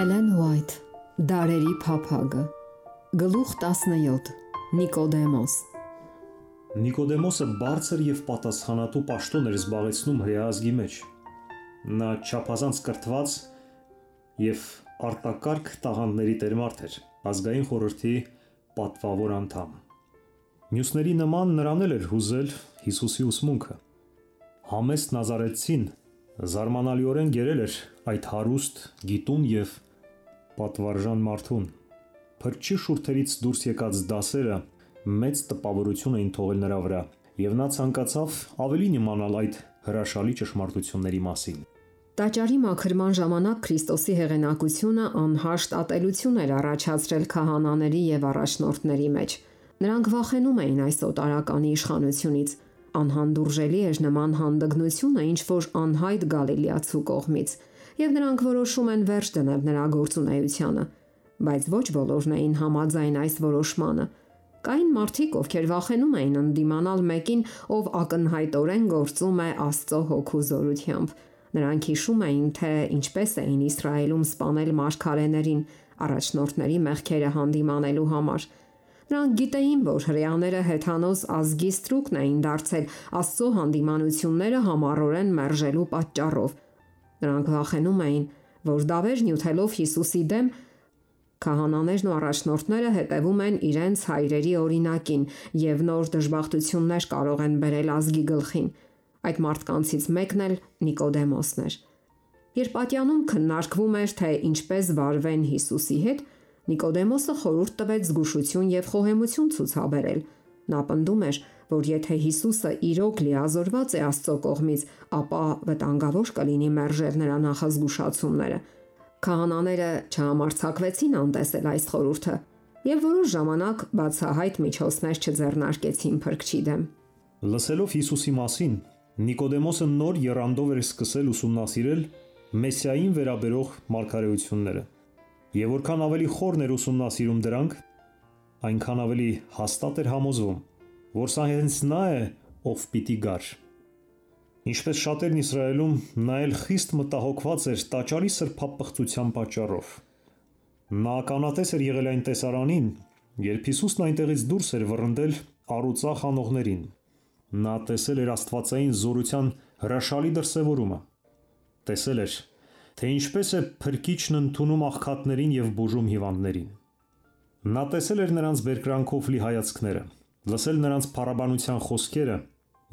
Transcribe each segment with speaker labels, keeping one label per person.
Speaker 1: Էլեն Ուայթ, Դարերի փափագը, Գլուխ 17, Նիկոդեմոս։
Speaker 2: Նիկոդեմոսը բարձր և պատասխանատու պաշտոն էր զբաղեցնում հրեա ազգի մեջ։ Նա չափազանց կրթված և արտակարգ տաղանդների տերմարդ էր, ազգային խորհրդի պատվավոր անդամ։ Մյուսների նման նրան էլ էր հուզել Հիսուսի ուսմունքը։ Համեստ նազարեթցին զարմանալիորեն գերել էր այդ հարուստ, գիտուն և պատվարժան մարդուն։ Փրկչի շուրթերից դուրս եկած դասերը մեծ տպավորություն էին թողել նրա վրա, և նա ցանկացավ ավելին իմանալ այդ հրաշալի ճշմարտությունների մասին։
Speaker 1: Տաճարի մաքրման ժամանակ Քրիստոսի հեղինակությունը անհաշտ ատելություն էր առաջացրել քահանաների և առաջնորդների մեջ։ Նրանք վախենում էին այս օտարականի իշխանությունից։ Անհանդուրժելի էր նման հանդգնությունը ինչ-որ անհայտ գալիլեացու կողմից, և նրանք որոշում են վերջ դնել նրա գործունեությանը։ Բայց ոչ բոլորն էին համաձայն այս որոշմանը։ Կային մարդիկ, ովքեր վախենում էին ընդդիմանալ մեկին, ով ակնհայտորեն գործում է Աստծո հոգու զորությամբ։ Նրանք հիշում էին, թե ինչպես էին Իսրայելում սպանել մարգարեներին առաջնորդների մեղքերը հանդիմանելու համար։ Նրանք գիտեին, որ հրեաները հեթանոս ազգի ստրուկն էին դարձել Աստծո հանդիմանությունները համառորեն մերժելու պատճառով։ Նրանք վախենում էին, որ դավեր նյութելով Հիսուսի դեմ, քահանաներն ու առաջնորդները հետևում են իրենց հայրերի օրինակին և նոր դժբախտություններ կարող են բերել ազգի գլխին։ Այդ մարդկանցից մեկն էլ Նիկոդեմոսն էր։ Երբ ատյանում քննարկվում էր, թե ինչպես վարվեն Հիսուսի հետ, Նիկոդեմոսը խորհուրդ տվեց զգուշություն և խոհեմություն ցուցաբերել։ Նա պնդում էր, որ եթե Հիսուսը իրոք լիազորված է Աստծո կողմից, ապա վտանգավոր կլինի մերժել նրա նախազգուշացումները։ Քահանաները չհամարձակվեցին անտեսել այս խորհուրդը և որոշ ժամանակ բացահայտ միջոցներ չձեռնարկեցին փրկչի դեմ։
Speaker 2: Լսելով Հիսուսի մասին, Նիկոդեմոսը նոր եռանդով էր սկսել ուսումնասիրել Մեսիային վերաբերող մարգարեությունները։ Եվ որքան ավելի խորն էր ուսումնասիրում դրանք, այնքան ավելի հաստատ էր համոզվում, որ սա հենց նա է, ով պիտի գար։ Ինչպես շատերն Իսրայելում, նա էլ խիստ մտահոգված էր տաճարի սրբապղծության պատճառով։ Նա ականատես էր եղել այն տեսարանին, երբ Հիսուսն այնտեղից դուրս էր վռնդել առուծախ անողներին։ Նա տեսել էր աստվածային զորության հրաշալի դրսևորումը։ Տեսել էր, թե ինչպես է Փրկիչն ընդունում աղքատներին և բուժում հիվանդներին։ Նա տեսել էր նրանց բերկրանքով լի հայացքները, լսել նրանց փառաբանության խոսքերը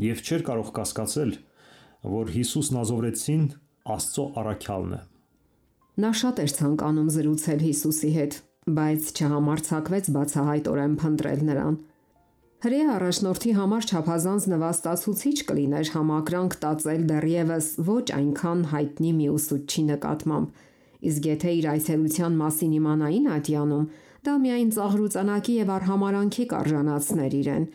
Speaker 2: և չէր կարող կասկածել, որ Հիսուս Նազովրեցին Աստծո առաքյալն է։
Speaker 1: Նա շատ էր ցանկանում զրուցել Հիսուսի հետ, բայց չհամարձակվեց բացահայտորեն փնտրել նրան։ Հրեա առաջնորդի համար չափազանց նվաստացուցիչ կլիներ համակրանք տածել դեռևս ոչ այնքան հայտնի մի ուսուցչի նկատմամբ, իսկ եթե իր այցելության մասին իմանային ատյանում, դա միայն ծաղրուծանակի և արհամարանքի կարժանացներ իրեն։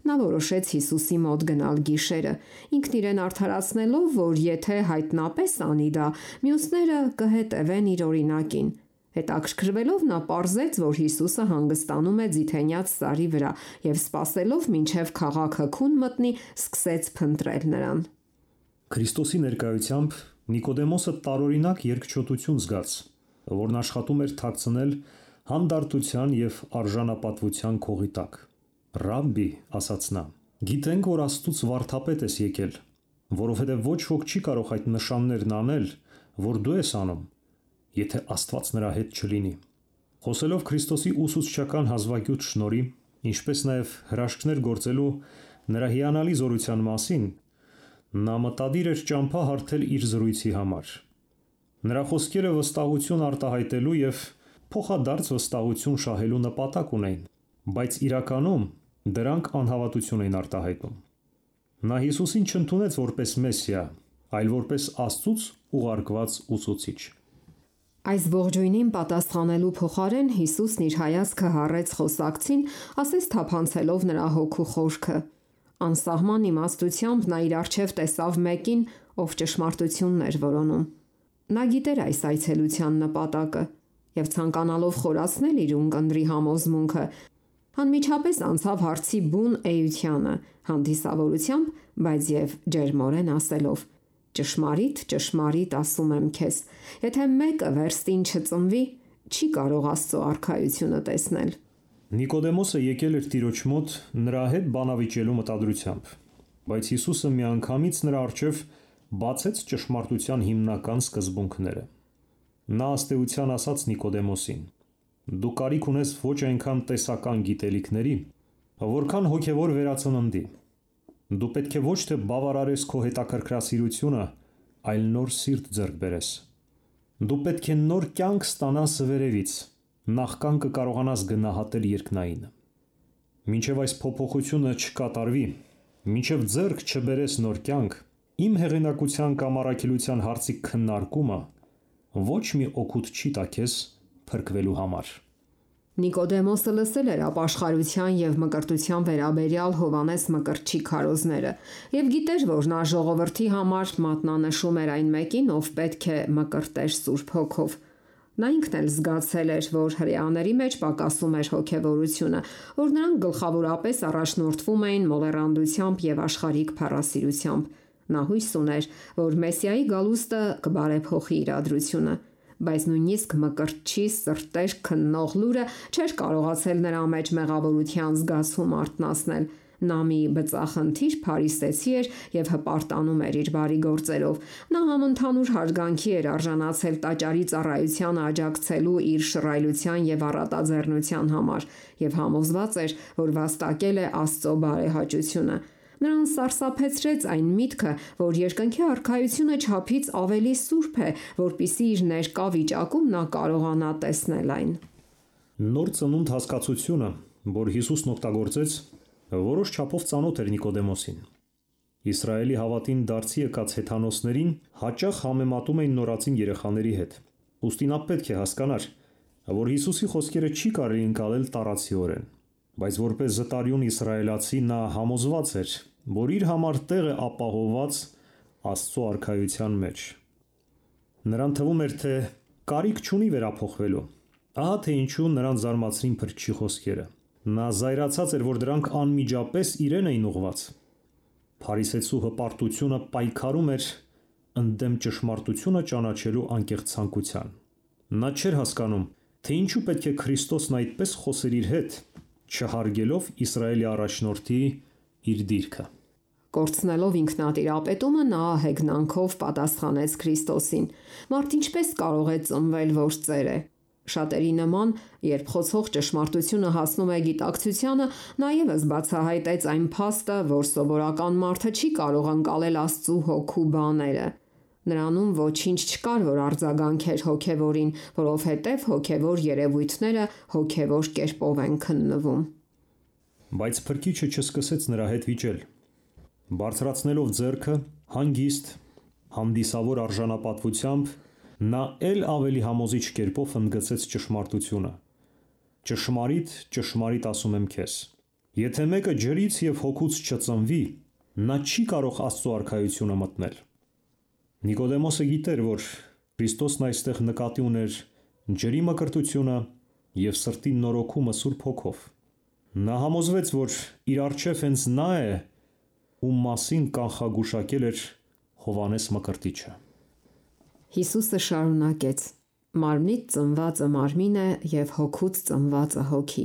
Speaker 1: Նա որոշեց Հիսուսի մոտ գնալ գիշերը, ինքն իրեն արդարացնելով, որ եթե հայտնապես անի դա, մյուսները կհետևեն իր օրինակին։ Հետաքրքրվելով նա պարզեց, որ Հիսուսը հանգստանում է Ձիթենյաց սարի վրա և սպասելով մինչև քաղաքը քուն մտնի, սկսեց փնտրել նրան։
Speaker 2: Քրիստոսի ներկայությամբ Նիկոդեմոսը տարօրինակ երկչոտություն զգաց, որն աշխատում էր թաքցնել հանդարտության և արժանապատվության քողի տակ։ «Ռաբբի», ասաց նա, «գիտենք, որ Աստծուց վարդապետ ես եկել, որովհետև ոչ ոք չի կարող այդ նշաններն անել, որ դու ես անում, եթե Աստված նրա հետ չլինի»։ Խոսելով Քրիստոսի ուսուցչական հազվագյուտ շնորհի, ինչպես նաև հրաշքներ գործելու նրա հիանալի զորության մասին, նա մտադիր էր ճամփա հարթել իր զրույցի համար։ Նրա խոսքերը վստահություն արտահայտելու և փոխադարձ վստահություն շահելու նպատակ ունեին, բայց իրականում դրանք անհավատություն էին արտահայտում։ Նա Հիսուսին չընդունեց որպես Մեսիա, այլ որպես Աստծուց ուղարկված ուսուցիչ։
Speaker 1: Այս ողջույնին պատասխանելու փոխարեն Հիսուսն իր հայացքը հառեց խոսակցին, ասես թափանցելով նրա հոգու խորքը։ Անսահման իմաստությամբ նա իր առջև տեսավ մեկին, ով ճշմարտությունն էր որոնում։ Նա գիտեր այս այցելության նպատակը և ցանկանալով խորացնել իր ունկնդրի համոզմունքը, անմիջապես անցավ հարցի բուն էությանը, հանդիսավորությամբ, բայց և ջերմորեն ասելով. Ճշմարիտ, ճշմարիտ ասում եմ քեզ, եթե մեկը վերստին չծնվի, չի կարող Աստծո արքայությունը տեսնել։
Speaker 2: Նիկոդեմոսը եկել էր Տիրոջ մոտ նրա հետ բանավիճելու մտադրությամբ, բայց Հիսուսը միանգամից նրա առջև բացեց ճշմարտության հիմնական սկզբունքները։ Նա ըստեյության ասաց Նիկոդեմոսին. «Դու կարիք ունես ոչ այնքան տեսական գիտելիքների, որքան հոգևոր վերածննդի։ Դու պետք է ոչ թե բավարարես քո հետաքրքրասիրությունը, այլ նոր սիրտ ձեռք բերես։ Դու պետք է նոր կյանք ստանաս վերևից, նախքան կկարողանաս գնահատել երկնայինը։ Մինչև այս փոփոխությունը չկատարվի, մինչև ձեռք չբերես նոր կյանք, իմ հեղինակության կամ առաքելության հարցի քննարկումը ոչ մի օգուտ չի տա քեզ փրկվելու համար»։
Speaker 1: Նիկոդեմոսը լսել էր ապաշխարության և մկրտության վերաբերյալ Հովհաննես Մկրտչի քարոզները և գիտեր, որ նա ժողովրդի համար մատնանշում էր այն մեկին, ով պետք է մկրտեր Սուրբ Հոգով։ Նա ինքն էլ զգացել էր, որ հրեաների մեջ պակասում էր հոգևորությունը, որ նրանք գլխավորապես առաջնորդվում էին մոլեռանդությամբ և աշխարհիկ փառասիրությամբ։ Նա հույս ուներ, որ Մեսիայի գալուստը կբարեփոխի իրադրությունը, բայց նույնիսկ Մկրտչի սրտեր քննող լուրը չէր կարողացել նրա մեջ մեղավորության զգացում արթնացնել։ Նա մի բծախնդիր փարիսեցի էր և հպարտանում էր իր բարի գործերով։ Նա համընդհանուր հարգանքի էր արժանացել տաճարի ծառայությանը աջակցելու իր շռայլության և առատաձեռնության համար և համոզված էր, որ վաստակել է Աստծո բարեհաճությունը։ Նրան սարսափեցրեց այն միտքը, որ երկնքի արքայությունը չափից ավելի սուրբ է, որպեսզի իր ներկա վիճակում նա կարողանա տեսնել այն։
Speaker 2: Նոր ծնունդ հասկացությունը, որ Հիսուսն օգտագործեց, որոշ չափով ծանոթ էր Նիկոդեմոսին։ Իսրայելի հավատին դարձի եկած հեթանոսներին հաճախ համեմատում էին նորածին երեխաների հետ։ Ուստի նա պետք է հասկանար, որ Հիսուսի խոսքերը չի կարելի ընկալել տառացիորեն, բայց որպես զտարյուն իսրայելացի նա համոզված էր, որ իր համար տեղ է ապահովված Աստծո արքայության մեջ։ Նրան թվում էր, թե կարիք չունի վերափոխվելու։ Ահա թե ինչու նրան զարմացրին Փրկչի խոսքերը։ Նա զայրացած էր, որ դրանք անմիջապես իրեն էին ուղված։ Փարիսեցու հպարտությունը պայքարում էր ընդդեմ ճշմարտությունը ճանաչելու անկեղծ ցանկության։ Նա չէր հասկանում, թե ինչու պետք է Քրիստոսն այդպես խոսեր իր հետ, չհարգելով Իսրայելի առաջնորդի իր դիրքը։
Speaker 1: Կորցնելով ինքնատիրապետումը, նա հեգնանքով պատասխանեց Քրիստոսին. «Մարդ ինչպես կարող է ծնվել, որ ծեր է»։ Շատերի նման, երբ խոցող ճշմարտությունը հասնում է գիտակցությանը, նա ևս բացահայտեց այն փաստը, որ սովորական մարդը չի կարող ընկալել Աստծու Հոգու բաները։ Նրանում ոչինչ չկար, որ արձագանքեր հոգևորին, որովհետև հոգևոր երևույթները հոգևոր կերպով են քննվում։
Speaker 2: Բայց Փրկիչը չսկսեց նրա հետ վիճել։ Բարձրացնելով ձեռքը, հանգիստ, հանդիսավոր արժանապատվությամբ, նա էլ ավելի համոզիչ կերպով ընդգծեց ճշմարտությունը։ «Ճշմարիտ, ճշմարիտ ասում եմ քեզ, եթե մեկը ջրից և հոգուց չծնվի, նա չի կարող Աստծո արքայությունը մտնել»։ Նիկոդեմոսը գիտեր, որ Քրիստոսն այստեղ նկատի ուներ ջրի մկրտությունը և սրտի նորոգումը Սուրբ Հոգով։ Նա համոզվեց, որ իր առջև հենց նա է, ում մասին կանխագուշակել էր Հովհաննես Մկրտիչը։
Speaker 1: Հիսուսը շարունակեց. «Մարմնից ծնվածը մարմին է և հոգուց ծնվածը հոգի։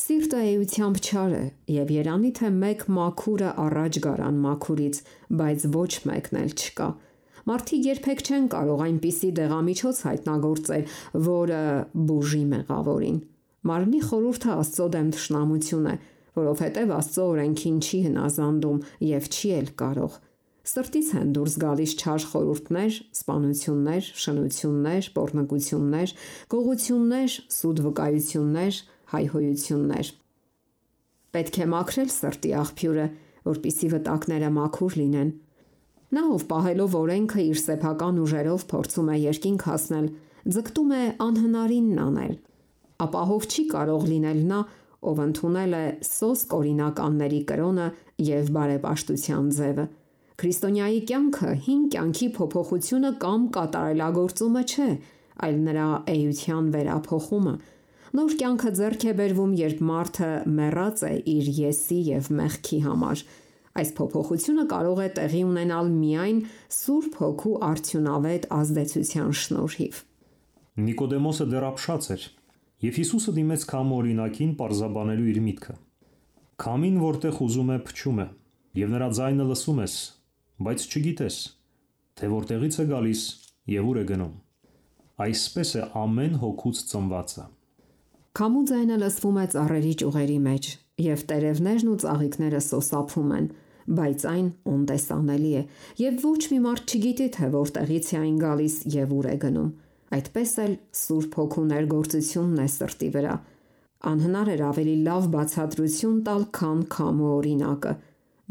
Speaker 1: Սիրտը էությամբ չար է, և երանի թե մեկ մաքուրը առաջ գարան մաքուրից, բայց ոչ մեկն էլ չկա։ Մարդիկ երբեք չեն կարող այնպիսի դեղամիջոց հայտնագործել, որը բուժի մեղավորին։ Մարմնի խորհուրդը Աստծո դեմ թշնամություն է, որովհետև Աստծո օրենքին չի հնազանդում և չի էլ կարող։ Սրտից են դուրս գալիս չար խորհուրդներ, սպանություններ, շնություններ, պոռնկություններ, գողություններ, սուտ վկայություններ, հայհոյություններ։ Պետք է մաքրել սրտի աղբյուրը, որպեսզի վտակները մաքուր լինեն։ Նա, ով պահելով օրենքը իր սեփական ուժերով փորձում է երկինք հասնել, ձգտում է անհնարինն անել։ Ապահով չի կարող լինել նա, ով ընդունել է սոսկ օրինականների կրոնը և բարեպաշտության ձևը։ Քրիստոնյայի կյանքը հին կյանքի փոփոխությունը կամ կատարելագործումը չէ, այլ նրա էության վերափոխումը։ Նոր կյանքը ձեռք է բերվում, երբ մարդը մեռած է իր եսի և մեղքի համար։ Այս փոփոխությունը կարող է տեղի ունենալ միայն Սուրբ Հոգու արդյունավետ ազդեցության շնորհիվ։
Speaker 2: Նիկոդեմոսը դեռ ապշած էր, եւ Հիսուսը դիմեց քամու օրինակին պարզաբանելու իր միտքը։ Քամին, որտեղ ուզում է, փչում է, եւ նրա ձայնը լսում ես, բայց չգիտես, թե որտեղից է գալիս եւ ուր է գնում։ Այսպես է ամեն հոգուց ծնվածը։
Speaker 1: Քամու ձայնը լսվում է ծառերի ճյուղերի մեջ, եւ տերևներն ու ծաղիկները սոսափում են, բայց այն անտեսանելի է, եւ ոչ մի մարդ չգիտի, թե որտեղից է այն գալիս եւ ուր է գնում։ Այդպես էլ Սուրբ Հոգու ներգործությունն է սրտի վրա։ Անհնար էր ավելի լավ բացատրություն տալ, քան քամու օրինակը։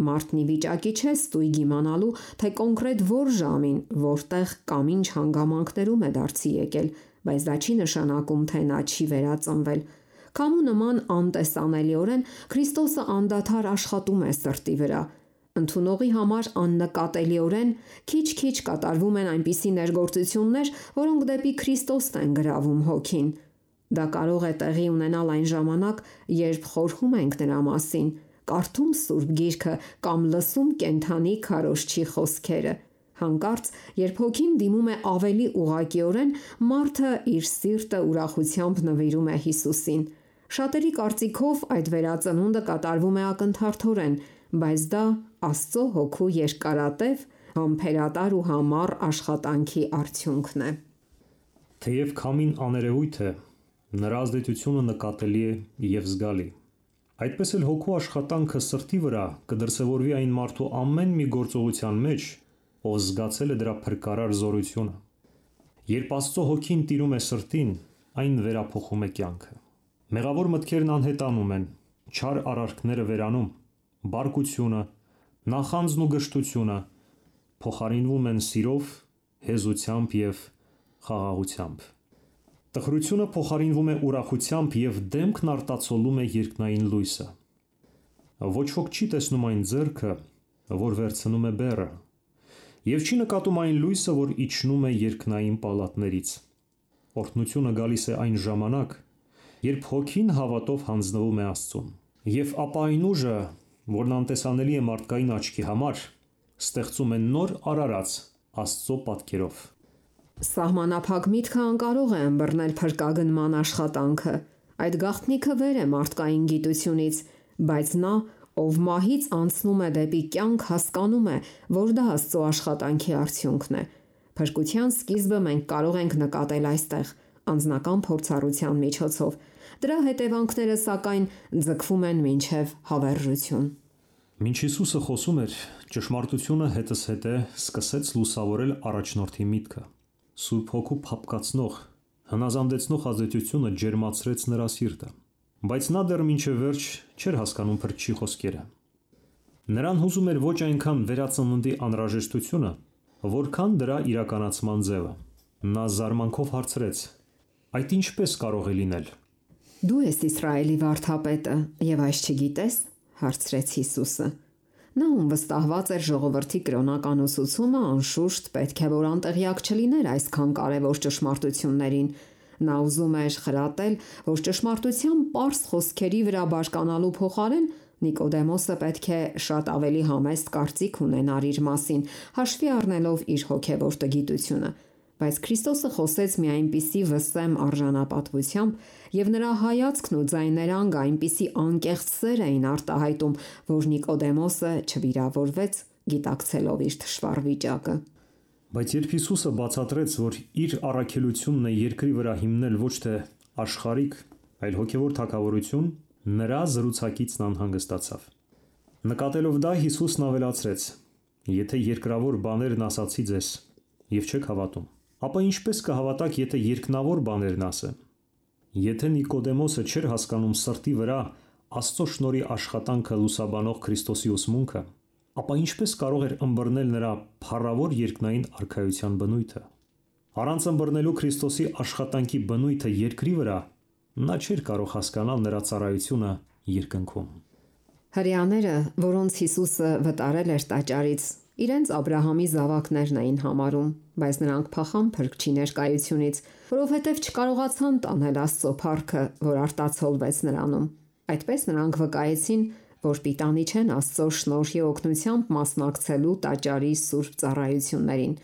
Speaker 1: Մարդն ի վիճակի չէ ստույգ իմանալու, թե կոնկրետ որ ժամին, որտեղ կամ ինչ հանգամանքներում է դարձի եկել, բայց դա չի նշանակում, թե նա չի վերածնվել։ Քամու նման անտեսանելիորեն Քրիստոսը անդադար աշխատում է սրտի վրա։ Ընդունողի համար աննկատելիորեն քիչ-քիչ կատարվում են այնպիսի ներգործություններ, որոնք դեպի Քրիստոսն են գրավում հոգին։ Դա կարող է տեղի ունենալ այն ժամանակ, երբ խորհում ենք նրա մասին, կարդում Սուրբ Գիրքը կամ լսում կենդանի քարոզչի խոսքերը։ Հանկարծ, երբ հոգին դիմում է ավելի ուղղակիորեն, մարդը իր սիրտը ուրախությամբ նվիրում է Հիսուսին։ Շատերի կարծիքով այդ վերածնունդը կատարվում է ակնթարթորեն, բայց դա Աստծո Հոգու երկարատև, համբերատար ու համառ աշխատանքի արդյունքն է։
Speaker 2: Թեև քամին աներևույթ է, նրա ազդեցությունը նկատելի է եւ զգալի։ Այդպես էլ հոգու աշխատանքը սրտի վրա կդրսևորվի այն մարդու ամեն մի գործողության մեջ, ով զգացել է դրա փրկարար զորությունը։ Երբ Աստծո հոգին տիրում է սրտին, այն վերափոխում է կյանքը։ Մեղավոր մտքերն անհետանում են, չար արարքները վերանում, բարկությունը, նախանձն ու գժտությունը փոխարինվում են սիրով, հեզությամբ եւ խաղաղությամբ։ Տխրությունը փոխարինվում է ուրախությամբ եւ դեմքն արտացոլում է երկնային լույսը։ Ոչ ոք չի տեսնում այն ձեռքը, որ վերցնում է բեռը, եւ չի նկատում այն լույսը, որ իջնում է երկնային պալատներից։ Օրհնությունը գալիս է այն ժամանակ, երբ հոգին հավատով հանձնվում է Աստծուն, եւ ապա այն ուժը, որն անտեսանելի է մարդկային աչքի համար, ստեղծում է նոր արարած Աստծո պատկերով։
Speaker 1: Սահմանափակ միտքը անկարող է ըմբռնել փրկագնման աշխատանքը։ Այդ գաղտնիքը վեր է մարդկային գիտությունից, բայց նա, ով մահից անցնում է դեպի կյանք, հասկանում է, որ դա Աստծո աշխատանքի արդյունքն է։ Փրկության սկիզբը մենք կարող ենք նկատել այստեղ, անձնական փորձառության միջոցով։ Դրա հետևանքները, սակայն, ձգվում են մինչև հավերժություն։
Speaker 2: Մինչ Հիսուսը խոսում էր, ճշմարտությունը հետզհետե սկսեց լուսավորել առաջնորդի միտքը։ Սուրբ Հոգու փափկացնող, հնազանդեցնող ազդեցությունը ջերմացրեց նրա սիրտը, բայց նա դեռ մինչև վերջ չէր հասկանում Փրկչի խոսքերը։ Նրան հուզում էր ոչ այնքան վերածննդի անհրաժեշտությունը, որքան դրա իրականացման ձևը։ Նա զարմանքով հարցրեց. «Այդ ինչպես կարող է լինել»։
Speaker 1: Դու ես Իսրայելի վարդապետը, եւ այս չգիտես, հարցրեց Հիսուսը։ Նա ում վստահված էր ժողովրդի կրոնական ուսուցումը, անշուշտ պետք է որ անտեղյակ չլիներ այսքան կարևոր ճշմարտություններին։ Նա ուզում էր խրատել, որ ճշմարտության պարզ խոսքերի վրա բարկանալու փոխարեն Նիկոդեմոսը պետք է շատ ավելի համեստ կարծիք ունենար իր մասին, հաշվի առնելով իր հոգևոր տգիտությունը։ Բայց Քրիստոսը խոսեց մի այնպիսի վսեմ արժանապատվությամբ, եւ նրա հայացքն ու ձայներանգը այնպիսի անկեղծ սեր էին արտահայտում, որ Նիկոդեմոսը չվիրավորվեց, գիտակցելով իր թշվառ վիճակը։
Speaker 2: Բայց երբ Հիսուսը բացատրեց, որ իր առաքելությունն է երկրի վրա հիմնել ոչ թե աշխարհիկ, այլ հոգևոր թագավորություն, նրա զրուցակիցն անհանգստացավ։ Նկատելով դա, Հիսուսն ավելացրեց. «Եթե երկրավոր բաներն ասացի ձեզ, եւ չեք հավատում, ապա ինչպես կհավատաք, եթե երկնավոր բաներն ասեմ։ Եթե Նիկոդեմոսը չէր հասկանում սրտի վրա Աստծո շնորհի աշխատանքը լուսաբանող Քրիստոսի ուսմունքը, ապա ինչպես կարող էր ըմբռնել նրա փառավոր երկնային արքայության բնույթը։ Առանց ըմբռնելու Քրիստոսի աշխատանքի բնույթը երկրի վրա, նա չէր կարող հասկանալ նրա ծառայությունը երկնքում։
Speaker 1: Հրեաները, որոնց Հիսուսը վտարել էր տաճարից, իրենց Աբրահամի զավակներն էին համարում, բայց նրանք փախան Փրկչի ներկայությունից, որովհետև չկարողացան տանել Աստծո փառքը, որ արտացոլվեց նրանում։ Այդպես նրանք վկայեցին, որ պիտանի չեն Աստծո շնորհի օգնությամբ մասնակցելու տաճարի սուրբ ծառայություններին։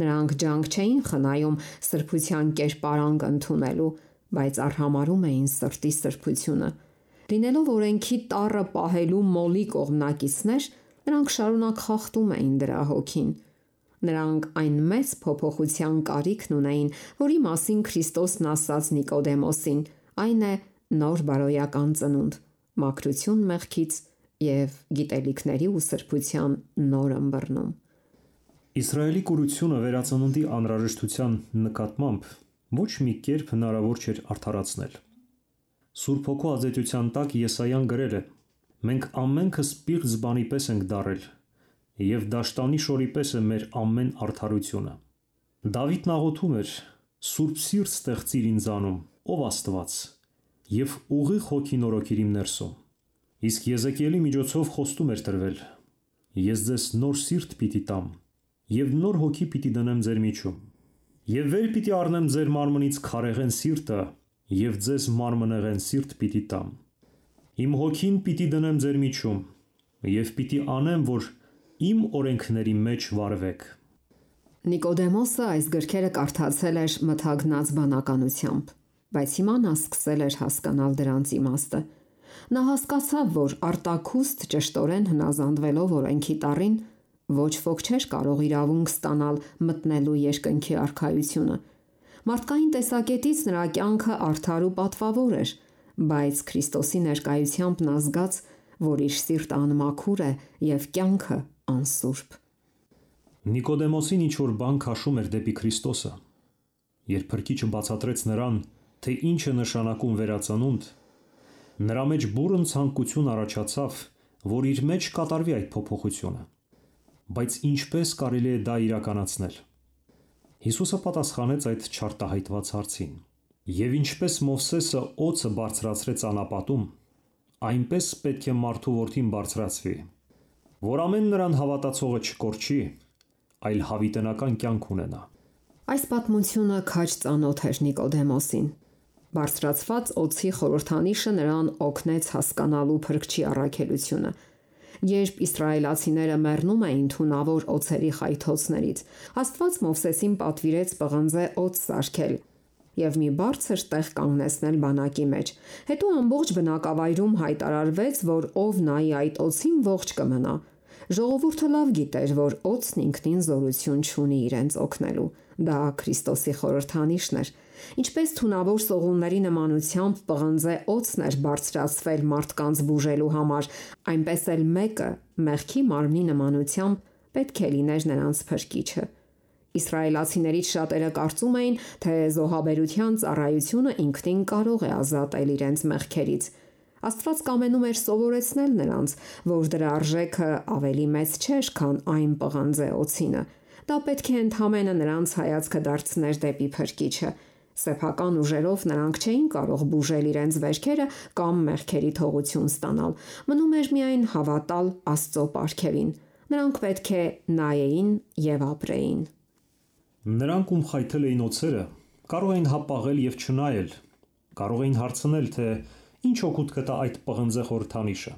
Speaker 1: Նրանք ջանք չէին խնայում սրբության կերպարանք ընդունելու, բայց արհամարհում էին սրտի սրբությունը։ Լինելով օրենքի տառը պահելու մոլի կողմնակիցներ, նրանք շարունակ խախտում էին դրա հոգին։ Նրանք այն մեծ փոփոխության կարիքն ունեին, որի մասին Քրիստոսն ասաց Նիկոդեմոսին, այն է նոր բարոյական ծնունդ, մաքրություն մեղքից և գիտելիքների ու սրբության նոր ըմբռնում։
Speaker 2: Իսրայելի կուրությունը վերածննդի անհրաժեշտության նկատմամբ ոչ մի կերպ հնարավոր չէր արդարացնել։ Սուրբ Հոգու ազդեցության տակ Եսայան գրել է. «Մենք ամենքս պիղծ զբանի պես ենք դառել, և դաշտանի շորի պես է մեր ամեն արդարությունը»։ Դավիթն աղոթում էր. «Սուրբ սիրտ ստեղծիր ինձանում, ով Աստված, և ուղիղ հոգի նորոգիր իմ ներսում»։ Իսկ Եզեկիելի միջոցով խոստում էր տրվել. «Ես ձեզ նոր սիրտ պիտի տամ, և նոր հոգի պիտի դնեմ ձեր միջում, և վեր պիտի առնեմ ձեր մարմնից քարեղեն սիրտը, և ձեզ մարմնեղեն սիրտ պիտի տամ։ Իմ հոգին պիտի դնեմ ձեր միջում, և պիտի անեմ, որ իմ օրենքների մեջ վարվեք»։
Speaker 1: Նիկոդեմոսը այս գրքերը կարդացել էր մթագնած բանականությամբ, բայց հիմա նա սկսել էր հասկանալ դրանց իմաստը։ Նա հասկացավ, որ արտաքուստ ճշտորեն հնազանդվելով օրենքի տառին, ոչ ոք չէր կարող իրավունք ստանալ մտնելու երկնքի արքայությունը։ Մարդկային տեսակետից նրա կյանքը արդար ու պատվավոր էր, բայց Քրիստոսի ներկայությամբ նա զգաց, որ իր սիրտը անմաքուր է և կյանքը անսուրբ։
Speaker 2: Նիկոդեմոսին ինչ-որ բան քաշում էր դեպի Քրիստոսը։ Երբ Փրկիչը բացատրեց նրան, թե ինչ է նշանակում վերածնունդ, նրա մեջ բուռն ցանկություն առաջացավ, որ իր մեջ կատարվի այդ փոփոխությունը։ Բայց ինչպես կարելի է դա իրականացնել։ Հիսուսը պատասխանեց այդ չարտահայտված հարցին. «Եվ ինչպես Մովսեսը օձը բարձրացրեց անապատում, այնպես պետք է մարդու որդին բարձրացվի, որ ամեն նրան հավատացողը չկորչի, այլ հավիտենական կյանք ունենա»։
Speaker 1: Այս պատմությունը քաջ ծանոթ էր Նիկոդեմոսին։ Բարձրացված օձի խորհրդանիշը նրան օգնեց հասկանալու Փրկչի առաքելությունը։ Երբ իսրայելացիները մեռնում էին թունավոր օձերի խայթոցներից, Աստված Մովսեսին պատվիրեց պղնձե օձ սարքել և մի բարձր տեղ կանգնեցնել բանակի մեջ։ Հետո ամբողջ բնակավայրում հայտարարվեց, որ ով նայի այդ օձին, ողջ կմնա։ Ժողովուրդը լավ գիտեր, որ օձն ինքնին զորություն չունի իրենց օգնելու։ Դա Քրիստոսի խորհրդանիշն էր։ Ինչպես թունավոր սողունների նմանությամբ պղնձե օձն էր բարձրացվել մարդկանց բուժելու համար, այնպես էլ մեկը մեղքի մարմնի նմանությամբ պետք է լիներ նրանց Փրկիչը։ Իսրայելացիներից շատերը կարծում էին, թե զոհաբերության ծառայությունը ինքնին կարող է ազատել իրենց մեղքերից։ Աստված կամենում էր սովորեցնել նրանց, որ դրա արժեքը ավելի մեծ չէր, քան այն պղնձե օձինը։ Դա պետք է ընդհանրապես նրանց հայացքը դարձներ դեպի Փրկիչը։ Սեփական ուժերով նրանք չէին կարող բուժել իրենց վերքերը կամ մեղքերի թողություն ստանալ։ Մնում էր միայն հավատալ Աստծո պարգևին։ Նրանք պետք է նայեին և ապրեին։
Speaker 2: Նրանք, ում խայթել էին օձերը, կարող էին հապաղել և չնայել, կարող էին հարցնել, թե ինչ օգուտ կտա այդ պղնձե խորհրդանիշը։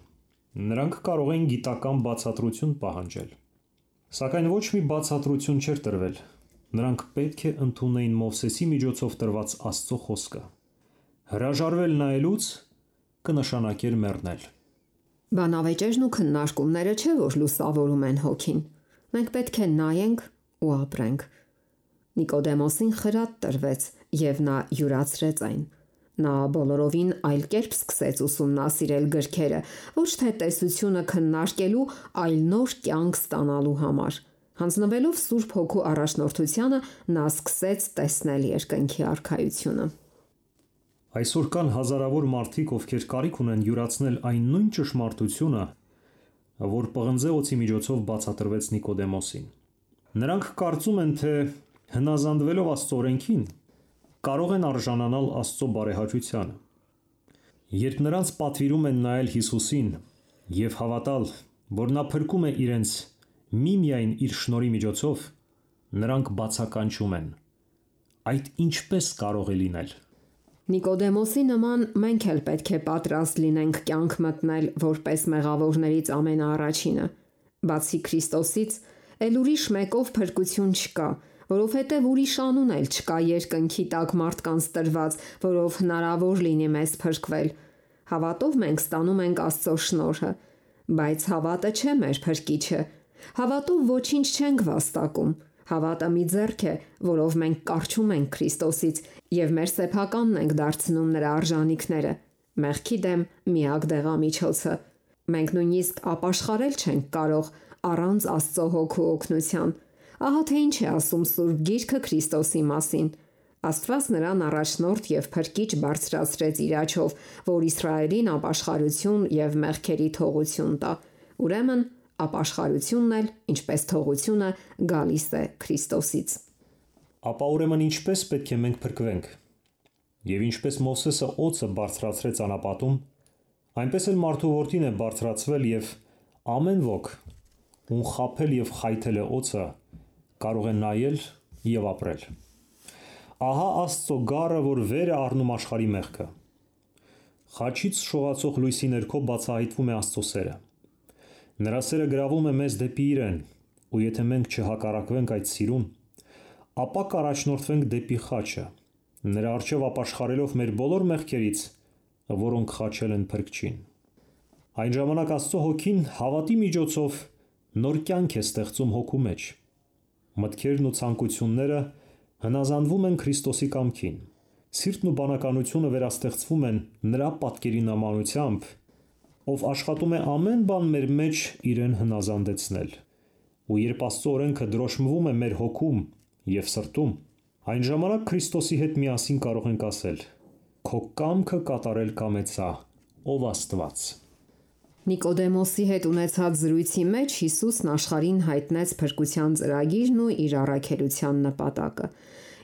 Speaker 2: Նրանք կարող էին գիտական բացատրություն պահանջել։ Սակայն ոչ մի բացատրություն չէր տրվել։ Նրանք պետք է ընդունեին Մովսեսի միջոցով տրված Աստծո խոսքը։ Հրաժարվել նայելուց կնշանակեր մեռնել։
Speaker 1: Բանավեճերն ու քննարկումները չէ, որ լուսավորում են հոգին։ Մենք պետք է նայենք ու ապրենք։ Նիկոդեմոսին խրատ տրվեց, և նա յուրացրեց այն։ Նա բոլորովին այլ կերպ սկսեց ուսումնասիրել գրքերը, ոչ թե տեսությունը քննարկելու, այլ նոր կյանք ստանալու համար։ Հանձնվելով Սուրբ Հոգու առաջնորդությանը, նա սկսեց տեսնել երկնքի արքայությունը։
Speaker 2: Այսօր կան հազարավոր մարդիկ, ովքեր կարիք ունեն յուրացնել այն նույն ճշմարտությունը, որ պղնձե օձի միջոցով բացատրվեց Նիկոդեմոսին։ Նրանք կարծում են, թե հնազանդվելով Աստծո օրենքին, կարող են արժանանալ Աստծո բարեհաճությանը։ Երբ նրանց պատվիրում են նայել Հիսուսին և հավատալ, որ նա փրկում է իրենց միմիայն իր շնորհի միջոցով, նրանք բացականչում են. այդ ինչպես կարող է լինել։
Speaker 1: Նիկոդեմոսի նման մենք էլ պետք է պատրաստ լինենք կյանք մտնել որպես մեղավորներից ամենաառաջինը։ Բացի Քրիստոսից, ել ուրիշ մեկով փրկություն չկա, որովհետև ուրիշ անուն էլ չկա երկնքի տակ մարդկանց տրված, որով հնարավոր լինի մեզ փրկվել։ Հավատով մենք ստանում ենք Աստծո շնորհը, բայց հավատը չէ մեր փրկիչը։ Հավատով ոչինչ չենք վաստակում։ Հավատը մի ձեռք է, որով մենք կառչում ենք Քրիստոսից եւ մեր սեփականն ենք դարձնում նրա արժանինքները։ Մեղքի դեմ միակ դեղամիջոցը։ Մենք նույնիսկ ապաշխարել չենք կարող առանց Աստծո հոգու օգնության։ Ահա թե ինչ է ասում Սուրբ Գիրքը Քրիստոսի մասին։ Աստված նրան առաջնորդ եւ փրկիչ բարձրացրեց իր աջով, որ Իսրայելին ապաշխարություն եւ մեղքերի թողություն տա։ Ուրեմն ապաշխարությունն էլ, ինչպես թողությունը, գալիս է Քրիստոսից։
Speaker 2: Ապա ուրեմն ինչպես պետք է մենք փրկվենք։ Եվ ինչպես Մովսեսը օձը բարձրացրեց անապատում, այնպես էլ մարդու որդին է բարձրացվել եւ ամեն ոք, ում խաբել եւ խայթել է օձը, կարող է նայել եւ ապրել։ Ահա Աստծո գառը, որ վեր է առնում աշխարհի մեղքը։ Խաչից շողացող լույսի ներքո բացահայտվում է Աստծո սերը։ Նրա սերը գրավում է մեզ դեպի իրեն, ու եթե մենք չհակառակվենք այդ սիրուն, ապա կառաջնորդվենք դեպի խաչը, նրա առջև ապաշխարելով մեր բոլոր մեղքերից, որոնք խաչել են փրկչին։ Այն ժամանակ Աստծո հոգին հավատի միջոցով նոր կյանք է ստեղծում հոգու մեջ։ Մտքերն ու ցանկությունները հնազանդվում են Քրիստոսի կամքին։ Սիրտն ու բանականությունը վերաստեղծվում են նրա պատկերի նմանությամբ, ով աշխատում է ամեն բան մեր մեջ իրեն հնազանդեցնել։ Ու երբ Աստծո օրենքը դրոշմվում է մեր հոգում եւ սրտում, այն ժամանակ Քրիստոսի հետ միասին կարող ենք ասել. «Քո կամքը կատարել կամեցա, ով Աստված»։
Speaker 1: Նիկոդեմոսի հետ ունեցած զրույցի մեջ Հիսուսն աշխարհին հայտնեց փրկության ծրագիրն ու իր առաքելության նպատակը։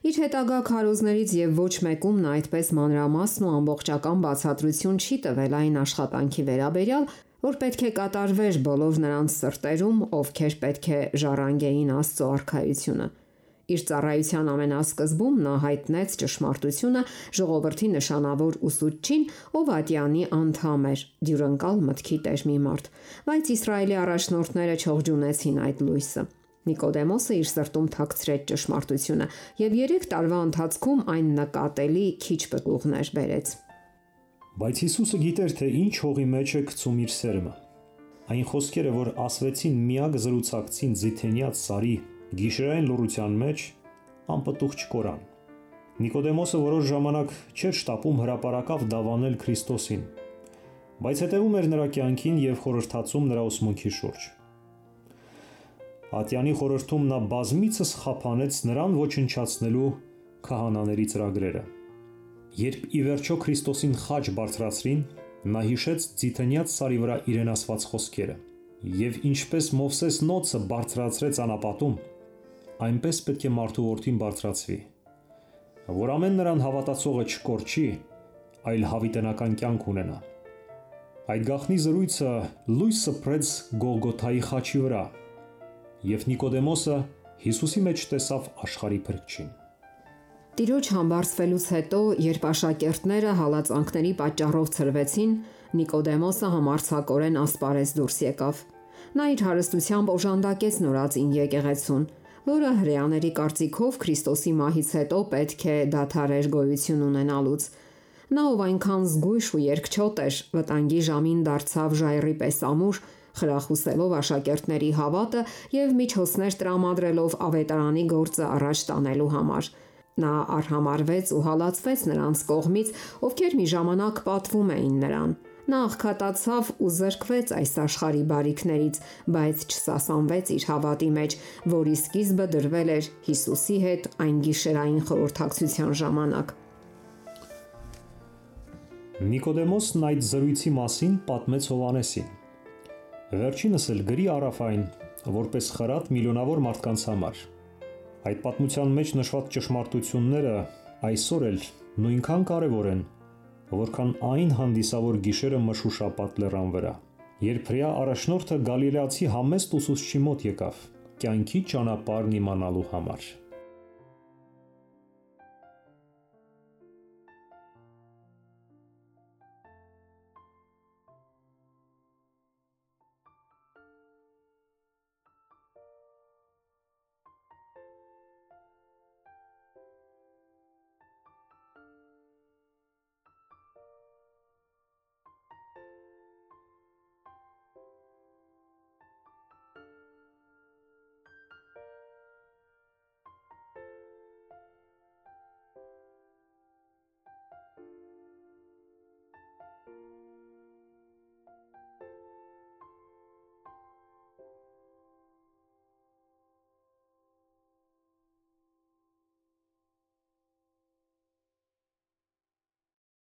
Speaker 1: Իր հետագա քարոզներից եւ ոչ մեկում նա այդպես մանրամասն ու ամբողջական բացատրություն չի տվել այն աշխատանքի վերաբերյալ, որ պետք է կատարվեր բոլոր նրանց սրտերում, ովքեր պետք է ժառանգեին Աստծո արքայությունը։ Իր ծառայության ամենասկզբում նա հայտնեց ճշմարտությունը ժողովրդի նշանավոր ուսուցչին, ով ատյանի անդամ էր, դյուրընկալ մտքի տեր մի մարդ, բայց Իսրայելի առաջնորդները չողջունեցին այդ լույսը։ Նիկոդեմոսը իր սրտում թաքցրեց ճշմարտությունը եւ 3 տարվա ընթացքում այն նկատելի քիչ պտուղներ բերեց։
Speaker 2: Բայց Հիսուսը գիտեր, թե ինչ հողի մեջ է գցում իր սերմը։ Այն խոսքերը, որ ասվեցին միակ զրուցակցին Ձիթենյաց Սարի գիշերային լռության մեջ, անպտուղ չկորան։ Նիկոդեմոսը որոշ ժամանակ չէր շտապում հրապարակավ դավանել Քրիստոսին, բայց հետևում էր նրա կյանքին եւ խորհրդածում նրա ուսմունքի շուրջ։ Ատյանի խորհրդում նա բազմիցս խափանեց նրան ոչնչացնելու քահանաների ծրագրերը։ Երբ ի վերջո Քրիստոսին խաչ բարձրացրին, նա հիշեց Ձիթենյաց Սարի վրա իրեն ասված խոսքերը։ Եվ ինչպես Մովսես նոցը բարձրացրեց անապատում, այնպես պետք է մարդու որդին բարձրացվի, որ ամեն նրան հավատացողը չկորչի, այլ հավիտենական կյանք ունենա։ Այդ գաղտնի զրույցը լույս սփռեց Գողգոթայի խաչի վրա, եւ Նիկոդեմոսը Հիսուսի մեջ տեսավ աշխարհի փրկչին։
Speaker 1: Տիրոջ համբարձվելուց հետո, երբ աշակերտները հալածանքների պատճառով ցրվեցին, Նիկոդեմոսը համարձակորեն ասպարեզ դուրս եկավ։ Նա իր հարստությամբ օժանդակեց նորածին եկեղեցուն, որը հրեաների կարծիքով Քրիստոսի մահից հետո պետք է դադարեր գոյություն ունենալուց։ Նա, ով այնքան զգույշ ու երկչոտ էր, վտանգի ժամին դարձավ ժայռի պես ամուր, խրախուսելով աշակերտների հավատը եւ միջոցներ տրամադրելով ավետարանի գործը առաջ տանելու համար։ Նա արհամարվեց ու հալածվեց նրանց կողմից, ովքեր մի ժամանակ պատվում էին նրան։ Նա աղքատացավ ու զրկվեց այս աշխարհի բարիքներից, բայց չսասանվեց իր հավատի մեջ, որի սկիզբը դրվել էր Հիսուսի հետ այն գիշերային խորհրդակցության ժամանակ։
Speaker 2: Նիկոդեմոսն այդ զրույցի մասին պատմեց Հովհաննեսին։ Վերջինս էլ գրի առավ այն, որպես խրատ միլիոնավոր մարդկանց համար։ Այդ պատմության մեջ նշված ճշմարտությունները այսօր էլ նույնքան կարևոր են, որքան այն հանդիսավոր գիշերը մշուշապատ լեռան վրա, երբ հրեա առաջնորդը գալիլեացի համեստ ուսուցչի մոտ եկավ կյանքի ճանապարհն իմանալու համար։